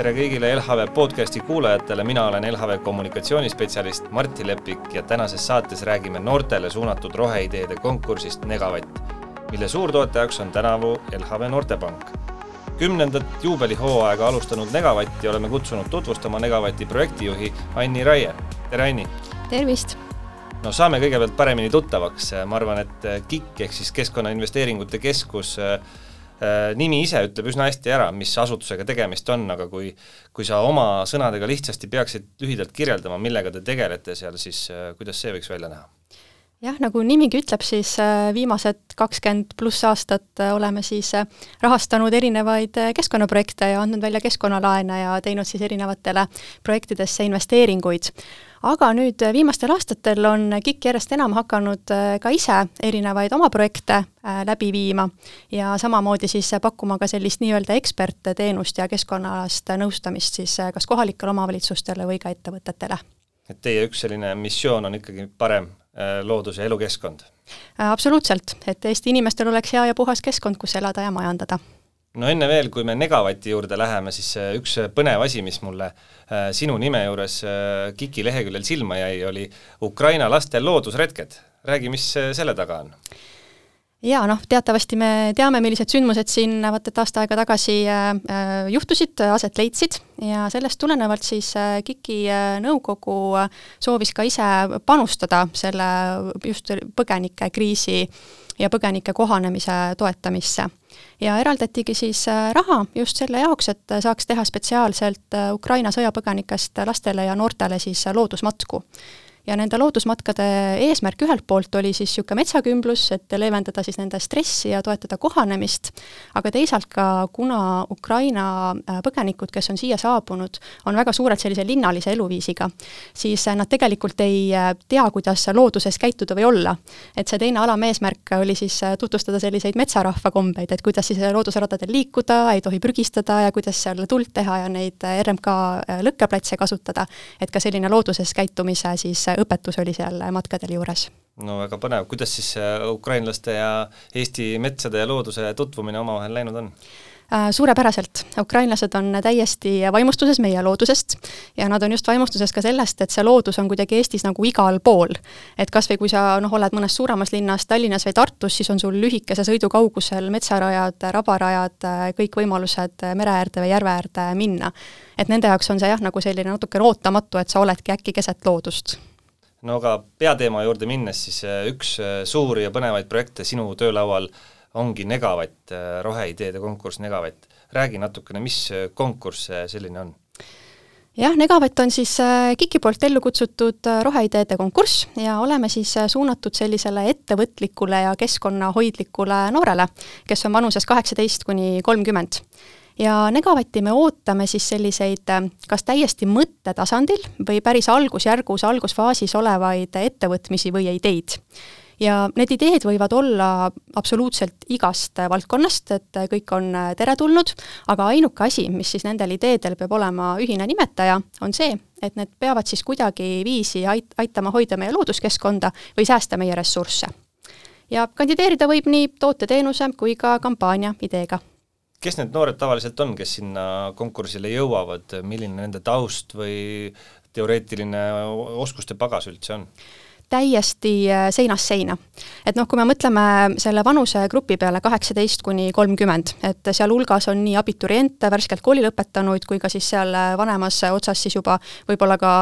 Tere kõigile LHV podcasti kuulajatele, mina olen LHV kommunikatsioonispetsialist Martti Lepik ja tänases saates räägime noortele suunatud roheideede konkursist Negavatt, mille suurtoetajaks on tänavu LHV Noortepank. 10. juubelihooaega alustanud Negavatti oleme kutsunud tutvustama Negavatti projektijuhi Anni Raie. Tere Anni! Tervist! No saame kõigepealt paremini tuttavaks. Ma arvan, et KIK ehk siis Keskkonnainvesteeringute Keskus nimi ise ütleb üsna hästi ära, mis asutusega tegemist on, aga kui sa oma sõnadega lihtsasti peaksid lühidalt kirjeldama, millega te tegelete seal, siis kuidas see võiks välja näha? Jah, nagu nimigi ütleb, siis viimased 20+ aastat oleme siis rahastanud erinevaid keskkonnaprojekte ja andnud välja keskkonnalaene ja teinud siis erinevatele projektidesse investeeringuid. Aga nüüd viimastel aastatel on KIK järjest enam hakanud ka ise erinevaid oma projekte läbi viima ja samamoodi siis pakkuma ka sellist nii-öelda ekspertteenust ja keskkonnaalast nõustamist siis kas kohalikele omavalitsustele või ka ettevõtetele. Et teie üks selline missioon on ikkagi parem loodus- ja elukeskkond? Absoluutselt, et Eesti inimestel oleks hea ja puhas keskkond, kus elada ja majandada. No enne veel, kui me Negavatti juurde läheme, siis üks põnev asi, mis mulle sinu nime juures KIK-i leheküljel silma jäi, oli Ukraina laste loodusretked. Räägi, mis selle taga on? Ja teatavasti me teame, millised sündmused siin et aasta aega tagasi juhtusid, aset leidsid ja sellest tulenevalt siis KIK-i nõukogu soovis ka ise panustada selle just põgenike kriisi ja põgenike kohanemise toetamisse. Ja eraldatigi siis raha just selle jaoks, et saaks teha spetsiaalselt Ukraina sõjapõgenikest lastele ja noortele siis loodusmatku. Ja nende loodusmatkade eesmärk ühelt poolt oli siis siuke metsakümblus, et leevendada siis nende stressi ja toetada kohanemist, aga teisalt ka, kuna Ukraina põgenikud, kes on siia saabunud, on väga suured sellise linnalise eluviisiga, siis nad tegelikult ei tea, kuidas looduses käituda või olla. Et see teine alameesmärk oli siis tutvustada selliseid metsarahva kombeid, et kuidas siis loodusradadel liikuda, ei tohi prügistada ja kuidas seal tuld teha ja neid RMK lõkkeplatse kasutada, et ka selline looduses käitumise siis õpetus oli seal matkadel juures. No väga põnev. Kuidas siis ukrainlaste ja Eesti metsade ja looduse tutvumine omavahel läinud on? Suurepäraselt. Ukrainlased on täiesti vaimustuses meie loodusest ja nad on just vaimustuses ka sellest, et see loodus on kuidagi Eestis nagu igal pool. Et kas või kui sa oled mõnes suuremas linnas, Tallinnas või Tartus, siis on sul lühikese sõidukaugusel metsarajad, rabarajad, kõik võimalused mereäärde või järveäärde minna. Et nende jaoks on see nagu selline natuke ootamatu, et sa oledki äkki keset loodust. No aga peateema juurde minnes, siis üks suuri ja põnevaid projekte sinu töölaual ongi Negavatt, roheideede konkurss Negavatt. Räägi natukene, mis konkurss selline on? Jah, Negavatt on siis KIK-i poolt ellu kutsutud roheideede konkurss ja oleme siis suunatud sellisele ettevõtlikule ja keskkonnahoidlikule noorele, kes on vanuses 18–30. Ja Negavatti me ootame siis selliseid kas täiesti mõttetasandil või päris algusfaasis olevaid ettevõtmisi või ideid. Ja need ideed võivad olla absoluutselt igast valdkonnast, et kõik on teretulnud, aga ainuke asi, mis siis nendel ideedel peab olema ühine nimetaja, on see, et need peavad siis kuidagi viisi aitama hoida meie looduskeskkonda või säästa meie ressursse. Ja kandideerida võib nii tooteteenuse kui ka kampaania ideega. Kes need noored tavaliselt on, kes sinna konkursile jõuavad? Milline nende taust või teoreetiline oskuste pagas üldse on? Täiesti seinast seina. Et kui me mõtleme selle vanuse grupi peale 18–30, et seal hulgas on nii abituriente, värskelt kooli lõpetanuid, kui ka siis seal vanemas otsas siis juba võib-olla ka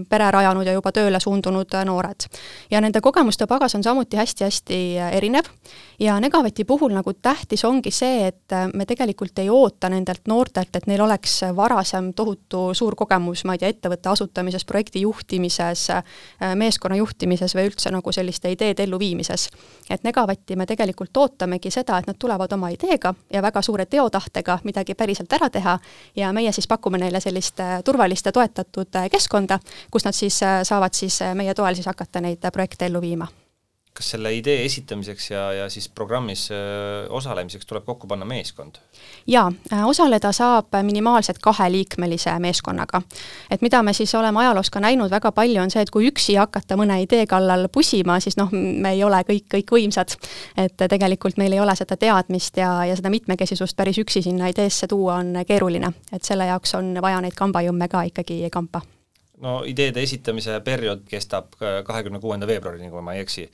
pere rajanud ja juba tööle suundunud noored. Ja nende kogemuste pagas on samuti hästi-hästi erinev ja Negavatti puhul nagu tähtis ongi see, et me tegelikult ei oota nendelt noortelt, et neil oleks varasem tohutu suur kogemus, ma ei tea, ettevõtte asutamises, projekti juhtimises, meeskonna juhtimises või üldse nagu selliste ideede elluviimises. Et Negavatti me tegelikult ootamegi seda, et nad tulevad oma ideega ja väga suure teotahtega midagi päriselt ära teha ja meie siis pakume neile sellist turvalist ja toetatud keskkonda, kus nad siis saavad siis meie toel siis hakata neid projekte ellu viima. kas selle idee esitamiseks ja siis programmis osalemiseks tuleb kokku panna meeskond? Jaa, osaleda saab minimaalselt 2-liikmelise meeskonnaga. Et mida me siis oleme ajaloos ka näinud väga palju on see, et kui üksi hakata mõne idee kallal pusima, siis me ei ole kõik võimsad. Et tegelikult meil ei ole seda teadmist ja seda mitmekesisust päris üksi sinna ideesse tuua on keeruline. Et selle jaoks on vaja neid kambajõmme ka ikkagi kampa. No ideede esitamise periood kestab 26. veebruarini, kui ma ei eksi.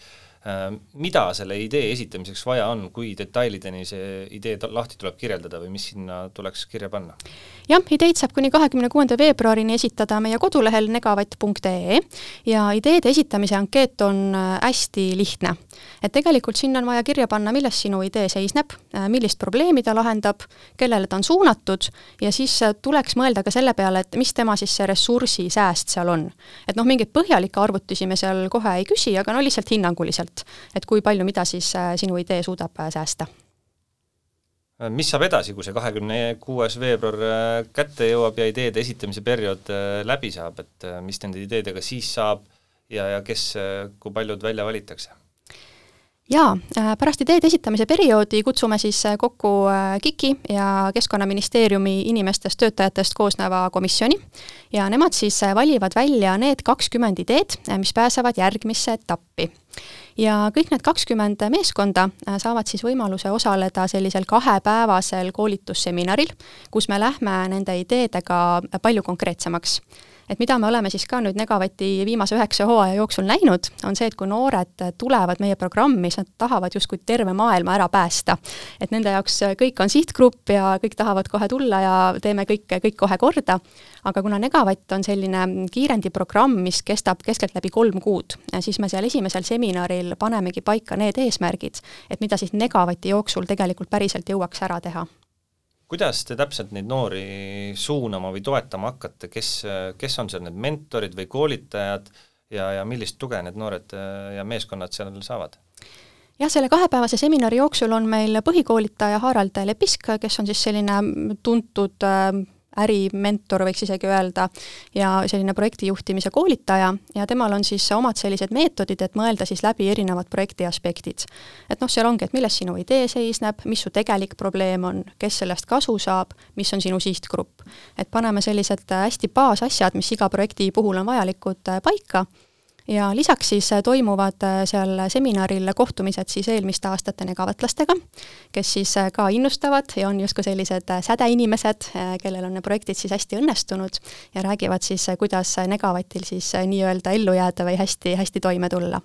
Mida selle idee esitamiseks vaja on, kui detailideni see idee lahti tuleb kirjeldada või mis sinna tuleks kirja panna? Jah, ideid saab kuni 26. veebruarini esitada meie kodulehel negavatt.ee ja ideede esitamise ankeet on hästi lihtne. Et tegelikult sinna on vaja kirja panna, milles sinu idee seisneb, millist probleemi ta lahendab, kellele ta on suunatud ja siis tuleks mõelda ka selle peale, et mis tema siis see ressursi sääst seal on. Et mingit põhjalikke arvutusi me seal kohe ei küsi, aga lihtsalt hinnanguliselt, et kui palju mida siis sinu idee suudab säästa. Mis saab edasi, kui see 26. veebruar kätte jõuab ja ideede esitamise periood läbi saab, et mis nende ideedega siis saab ja kes, kui paljud välja valitakse? Jaa, pärast ideede esitamise perioodi kutsume siis kokku KIK-i ja Keskkonnaministeeriumi inimestest töötajatest koosneva komisjoni ja nemad siis valivad välja need 20 ideed, mis pääsevad järgmisse etappi. Ja kõik need 20 meeskonda saavad siis võimaluse osaleda sellisel 2-päevasel koolitusseminaril, kus me lähme nende ideedega palju konkreetsemaks. Et mida me oleme siis ka nüüd Negavati viimase 9 hooaja jooksul näinud, on see, et kui noored tulevad meie programmi, siis nad tahavad justkui terve maailma ära päästa. Et nende jaoks kõik on sihtgrupp ja kõik tahavad kohe tulla ja teeme kõik kohe korda. Aga kuna Negavatt on selline kiirendiprogramm, mis kestab keskeltläbi 3 kuud, siis me seal esimesel seminaril panemegi paika need eesmärgid, et mida siis Negavati jooksul tegelikult päriselt jõuaks ära teha. Kuidas te täpselt neid noori suunama või toetama hakkate, kes on seal need mentorid või koolitajad ja millist tuge need noored ja meeskonnad seal saavad? Jah, selle 2-päevase seminari jooksul on meil põhikoolitaja Harald Lepisk, kes on siis selline tuntud ärimentor, võiks isegi öelda, ja selline projektijuhtimise koolitaja ja temal on siis omad sellised meetodid, et mõelda siis läbi erinevad projekti aspektid. Et seal ongi, et milles sinu idee seisneb, mis su tegelik probleem on, kes sellest kasu saab, mis on sinu sihtgrupp. Et paneme sellised hästi baasasjad, mis iga projekti puhul on vajalikud paika ja lisaks siis toimuvad seal seminaril kohtumised siis eelmiste aastate negavatlastega, kes siis ka innustavad ja on justkui sellised sädeinimesed, kellel on ne projektid siis hästi õnnestunud ja räägivad siis, kuidas Negavatil siis nii-öelda ellu jääda või hästi toime tulla.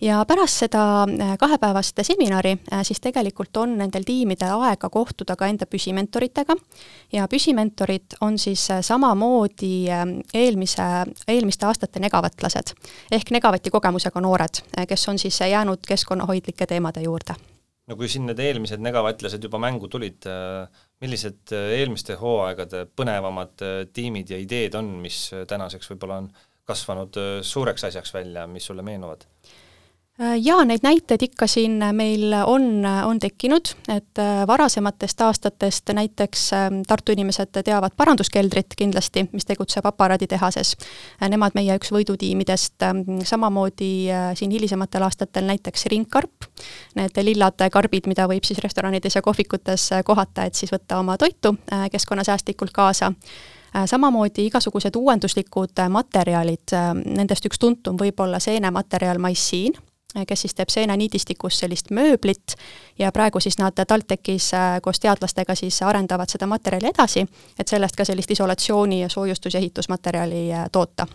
Ja pärast seda 2-päevast seminari siis tegelikult on nendel tiimidel aega kohtuda ka enda püsimentoritega ja püsimentorid on siis samamoodi eelmiste aastate negavatlased ehk Negavati kogemusega noored, kes on siis jäänud keskkonnahoidlike teemade juurde. No kui siin need eelmised negavatlased juba mängu tulid, millised eelmiste hooaegade põnevamad tiimid ja ideed on, mis tänaseks võib-olla on kasvanud suureks asjaks välja, mis sulle meenuvad? Ja neid näiteid ikka siin meil on tekkinud, et varasematest aastatest näiteks Tartu inimesed teavad paranduskeldrit kindlasti, mis tegutseb aparaaditehases. Nemad meie üks võidutiimidest, samamoodi siin hilisematel aastatel näiteks ringkarp, need lillad karbid, mida võib siis restoranides ja kohvikutes kohata, et siis võtta oma toitu keskkonnasäästlikult kaasa. Samamoodi igasugused uuenduslikud materjalid, nendest üks tuntum võib olla seenematerjal Maissiin, kes siis teeb seeneniidistikus sellist mööblit ja praegu siis nad TalTechis koos teadlastega siis arendavad seda materjali edasi, et sellest ka sellist isolatsiooni ja soojustus- ja ehitusmaterjali toota.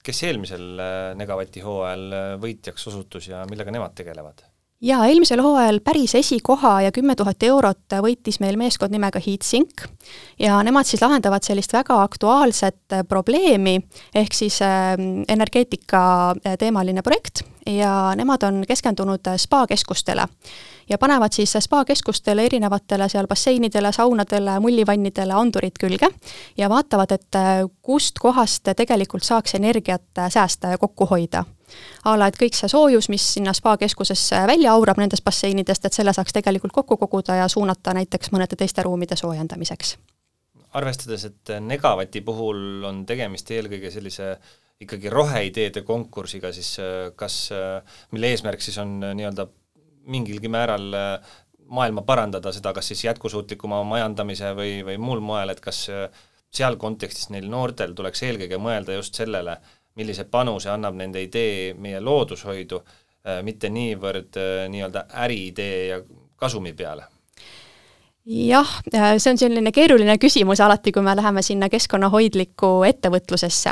Kes eelmisel Negavati hooajal võitjaks osutus ja millega nemad tegelevad? Ja eelmisel hooajal päris esikoha ja 10 000 eurot võitis meil meeskond nimega HeatSink ja nemad siis lahendavad sellist väga aktuaalset probleemi ehk siis energeetika teemaline projekt ja nemad on keskendunud spa-keskustele ja panevad siis spa-keskustele erinevatele seal basseinidele, saunadele, mullivannidele andurid külge ja vaatavad, et kust kohast tegelikult saaks energiat säästa ja kokku hoida. Ala, et kõik see soojus, mis sinna spa-keskuses välja aurab nendest basseinidest, et selle saaks tegelikult kokku koguda ja suunata näiteks mõnede teiste ruumide soojendamiseks. Arvestades, et Negavati puhul on tegemist eelkõige sellise ikkagi roheideede konkursiga, siis mille eesmärk siis on nii-öelda mingilgi määral maailma parandada seda, kas siis jätkusuutlikuma majandamise või muul moel, et kas seal kontekstis neil noortel tuleks eelkõige mõelda just sellele, millise panuse annab nende idee meie loodushoidu, mitte niivõrd nii-öelda äriidee ja kasumi peale. Jah, see on selline keeruline küsimus alati, kui me läheme sinna keskkonnahoidlikku ettevõtlusesse.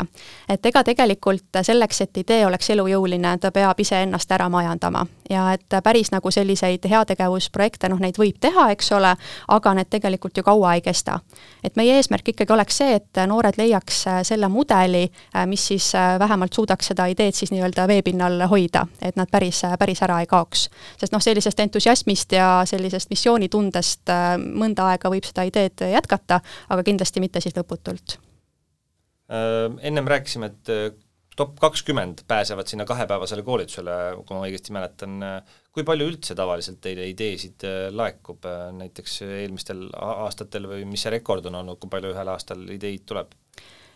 Et ega tegelikult selleks, et idee oleks elujõuline, ta peab ise ennast ära majandama. Ja et päris nagu selliseid heategevusprojekte, neid võib teha, eks ole, aga need tegelikult ju kaua ei kesta. Et meie eesmärk ikkagi oleks see, et noored leiaks selle mudeli, mis siis vähemalt suudaks seda ideed siis nii-öelda veepinnal hoida, et nad päris ära ei kaoks. Sest sellisest entusiasmist ja sellisest missioonitundest mõnda aega võib seda ideed jätkata, aga kindlasti mitte siis lõputult. Ennem rääkisime, et top 20 pääsevad sinna 2-päevasele koolitusele, kui ma õigesti mäletan. Kui palju üldse tavaliselt teile ideesid laekub näiteks eelmistel aastatel või mis see rekord on olnud, kui palju ühel aastal ideid tuleb?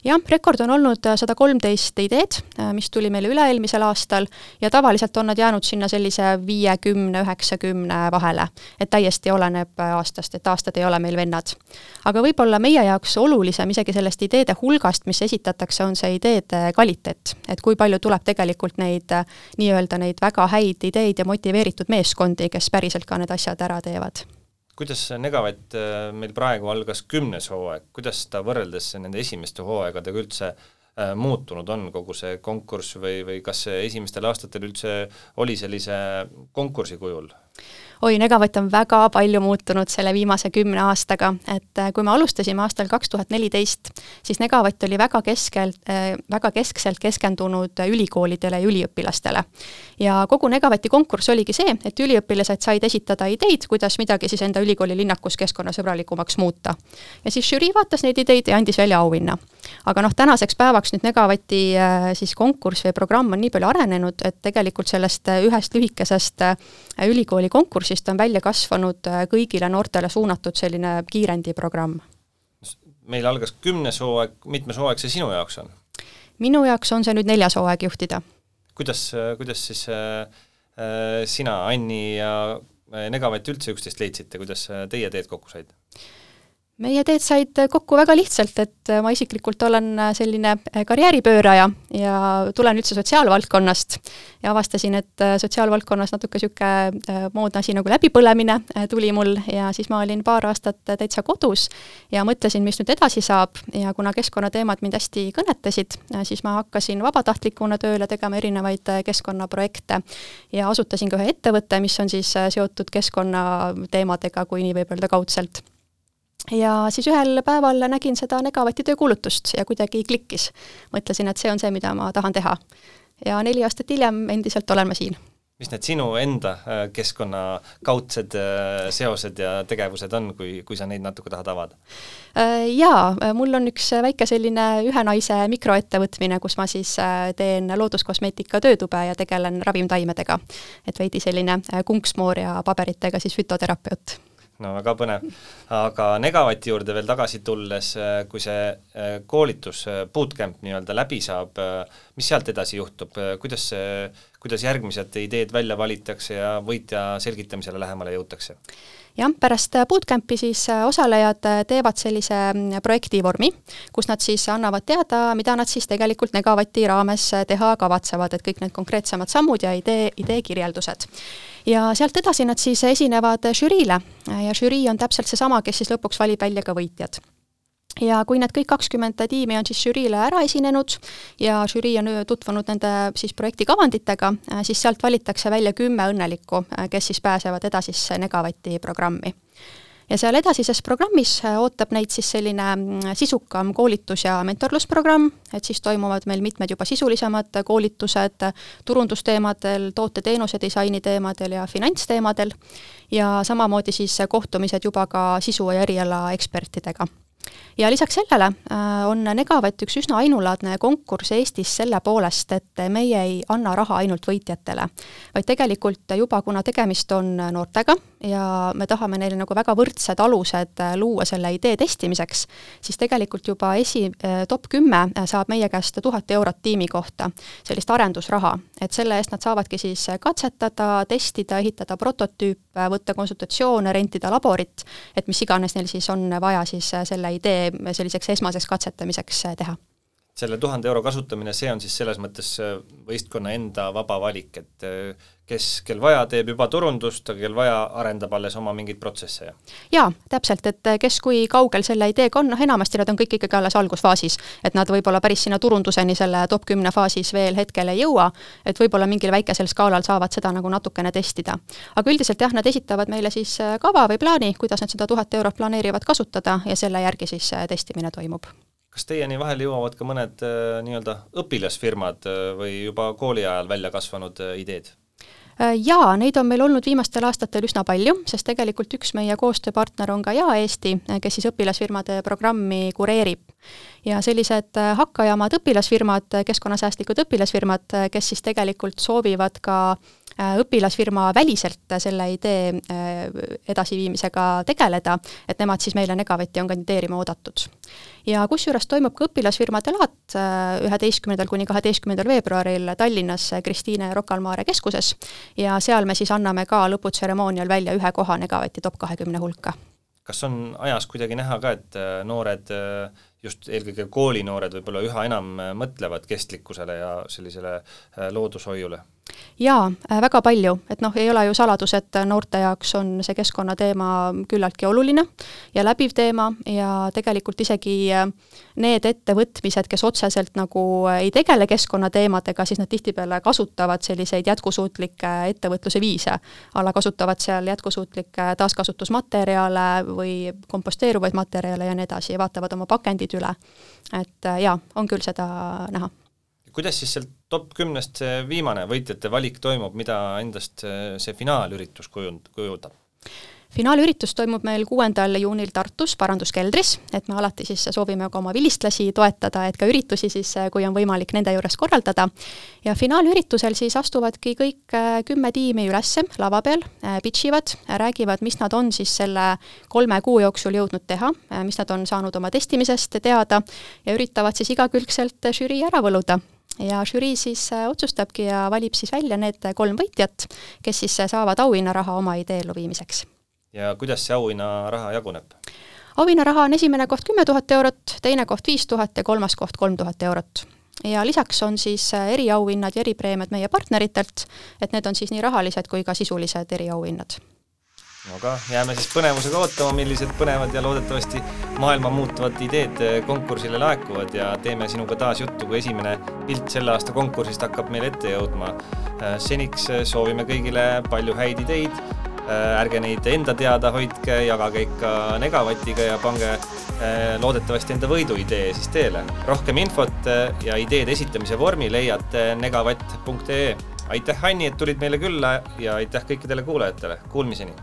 Jah, rekord on olnud 113 ideed, mis tuli meile üle-eelmisel aastal ja tavaliselt on nad jäänud sinna sellise 50-90 vahele, et täiesti oleneb aastast, et aastad ei ole meil vennad. Aga võib-olla meie jaoks olulisem isegi sellest ideede hulgast, mis esitatakse, on see ideede kvaliteet, et kui palju tuleb tegelikult neid väga häid ideid ja motiveeritud meeskondi, kes päriselt ka need asjad ära teevad. Kuidas Negavatt meil praegu algas 10. hooaeg, kuidas ta võrreldes nende esimeste hooaegadega üldse muutunud on kogu see konkurss või kas esimestel aastatel üldse oli sellise konkursi kujul? Negavatt on väga palju muutunud selle viimase 10 aastaga, et kui me alustasime aastal 2014, siis Negavatt oli väga keskselt keskendunud ülikoolidele ja üliõpilastele. Ja kogu Negavatti konkurss oligi see, et üliõpilased said esitada ideid, kuidas midagi siis enda ülikooli linnakus keskkonnasõbralikumaks muuta. Ja siis žürii vaatas neid ideid ja andis välja auhinna. Aga tänaseks päevaks nüüd Negavatti siis konkurss või programm on nii palju arenenud, et tegelikult sellest ühest lühikesest ülikooli konkursist on välja kasvanud kõigile noortele suunatud selline kiirendiprogramm. Meil algas 10. hooaeg, mitmes hooaeg see sinu jaoks on? Minu jaoks on see nüüd 4. hooaeg juhtida. Kuidas siis sina, Anni ja Negavatt üldse üksteist leidsite, kuidas teie teed kokku said? Meie teed said kokku väga lihtsalt, et ma isiklikult olen selline karjääripööraja ja tulen üldse sotsiaalvaldkonnast ja avastasin, et sotsiaalvaldkonnas natuke moodne asi nagu läbipõlemine tuli mul ja siis ma olin paar aastat täitsa kodus ja mõtlesin, mis nüüd edasi saab ja kuna keskkonnateemad mind hästi kõnetasid, siis ma hakkasin vabatahtlikuna tööle tegema erinevaid keskkonnaprojekte ja asutasin ka ühe ettevõtte, mis on siis seotud keskkonnateemadega, kui nii võib öelda kaudselt. Ja siis ühel päeval nägin seda Negavatti töökuulutust ja kuidagi klikkis. Mõtlesin, et see on see, mida ma tahan teha. Ja 4 aastat hiljem endiselt olen ma siin. Mis need sinu enda keskkonnakaudsed seosed ja tegevused on, kui sa neid natuke tahad avada? Jaa, mul on üks väike selline ühe naise mikroettevõtmine, kus ma siis teen looduskosmeetika töötube ja tegelen ravimtaimedega. Et veidi selline kunksmoor ja paberitega siis fütoterapeut. No väga põnev. Aga Negavatti juurde veel tagasi tulles, kui see koolitus, bootcamp nii-öelda läbi saab, mis sealt edasi juhtub? Kuidas järgmised ideed välja valitakse ja võitja selgitamisele lähemale jõutakse? Jah, pärast bootcampi siis osalejad teevad sellise projektivormi, kus nad siis annavad teada, mida nad siis tegelikult Negavatti raames teha kavatsevad, et kõik need konkreetsemad sammud ja idee kirjeldused. Ja sealt edasi nad siis esinevad žüriile ja žürii on täpselt seesama, kes siis lõpuks valib välja ka võitjad. Ja kui need kõik 20 tiimi on siis žüriile ära esinenud ja žürii on tutvunud nende siis projekti kavanditega, siis sealt valitakse välja 10 õnnelikku, kes siis pääsevad edasisse Negavatti programmi. Ja seal edasises programmis ootab neid siis selline sisukam koolitus- ja mentorlusprogramm, et siis toimuvad meil mitmed juba sisulisemad koolitused turundusteemadel, toote-teenuse disaini teemadel ja finantsteemadel ja samamoodi siis kohtumised juba ka sisu- ja eriala ekspertidega. Ja lisaks sellele on Negavatt üks üsna ainulaadne konkurss Eestis selle poolest, et meie ei anna raha ainult võitjatele, vaid tegelikult juba, kuna tegemist on noortega ja me tahame neile nagu väga võrdsed alused luua selle idee testimiseks, siis tegelikult juba top 10 saab meie käest 1000 eurot tiimi kohta, sellist arendusraha, et selle eest nad saavadki siis katsetada, testida, ehitada prototüüp, võtta konsultatsioone, rentida laborit, et mis iganes neil siis on vaja siis selle idee selliseks esmaseks katsetamiseks teha. Selle 1000 euro kasutamine, see on siis selles mõttes võistkonna enda vaba valik, et kel vaja teeb juba turundust, aga kel vaja arendab alles oma mingeid protsesse. Jaa, täpselt, et kes kui kaugel selle ideega on, enamasti nad on kõik ikkagi alles algusfaasis, et nad võib-olla päris sinna turunduseni selle top 10 faasis veel hetkel ei jõua, et võib-olla mingil väikesel skaalal saavad seda nagu natukene testida. Aga üldiselt jah, nad esitavad meile siis kava või plaani, kuidas nad seda 1000 eurot planeerivad kasutada ja selle järgi siis testimine toimub. Kas teieni vahel jõuavad ka mõned nii-öelda õpilasfirmad või juba kooli ajal välja kasvanud ideed? Jaa, neid on meil olnud viimastel aastatel üsna palju, sest tegelikult üks meie koostööpartner on ka Eesti, kes siis õpilasfirmade programmi kureerib. Ja sellised hakkajamad õpilasfirmad, keskkonnasäästlikud õpilasfirmad, kes siis tegelikult soovivad ka õpilasfirma väliselt selle idee edasiviimisega tegeleda, et nemad siis meile Negavatti on kandideerima oodatud. Ja kusjuures toimub ka õpilasfirmade laat 11. kuni 12. veebruaril Tallinnas Kristiine Rocca al Mare keskuses ja seal me siis anname ka lõputseremoonial välja ühe koha Negavatti top 20 hulka. Kas on ajas kuidagi näha ka, et noored, just eelkõige koolinoored võib-olla üha enam mõtlevad kestlikkusele ja sellisele loodushoiule? Jaa, väga palju, et ei ole ju saladus, et noorte jaoks on see keskkonnateema küllaltki oluline ja läbiv teema ja tegelikult isegi need ettevõtmised, kes otseselt nagu ei tegele keskkonnateemadega, siis nad tihtipeale kasutavad selliseid jätkusuutlikke ettevõtluse viise. Alla kasutavad seal jätkusuutlikke taaskasutusmaterjale või komposteeruvaid materjale ja nii edasi ja vaatavad oma pakendid üle. Et jaa, on küll seda näha. Kuidas siis seal top 10 see viimane võitjate valik toimub, mida endast see finaalüritus kujundab? Finaalüritus toimub meil 6. juunil Tartus Paranduskeldris, et me alati siis soovime ka oma vilistlasi toetada, et ka üritusi siis, kui on võimalik nende juures korraldada. Ja finaalüritusel siis astuvadki kõik 10 tiimi ülesse lava peal, pitchivad, räägivad, mis nad on siis selle 3 kuu jooksul jõudnud teha, mis nad on saanud oma testimisest teada ja üritavad siis igakülgselt žürii ära võluda. Ja žürii siis otsustabki ja valib siis välja need 3 võitjat, kes siis saavad auhinnaraha oma idee elluviimiseks. Ja kuidas see auhinnaraha jaguneb? Auhinnaraha on esimene koht 10 000 eurot, teine koht 5000 ja kolmas koht 3000 eurot. Ja lisaks on siis eriauhinnad ja eripreemiad meie partneritelt, et need on siis nii rahalised kui ka sisulised eriauhinnad. Aga jääme siis põnevusega ootama, millised põnevad ja loodetavasti maailma muutuvad ideed konkursile laekuvad ja teeme sinuga taas juttu, kui esimene pilt selle aasta konkursist hakkab meil ette jõudma. Seniks soovime kõigile palju häid ideid, ärge neid enda teada hoidke, jagage ikka Negavatiga ja pange loodetavasti enda võiduidee siis teele. Rohkem infot ja ideed esitamise vormi leiate negavatt.ee. Aitäh, Anni, et tulid meile külla ja aitäh kõikidele kuulajatele. Kuulmiseni!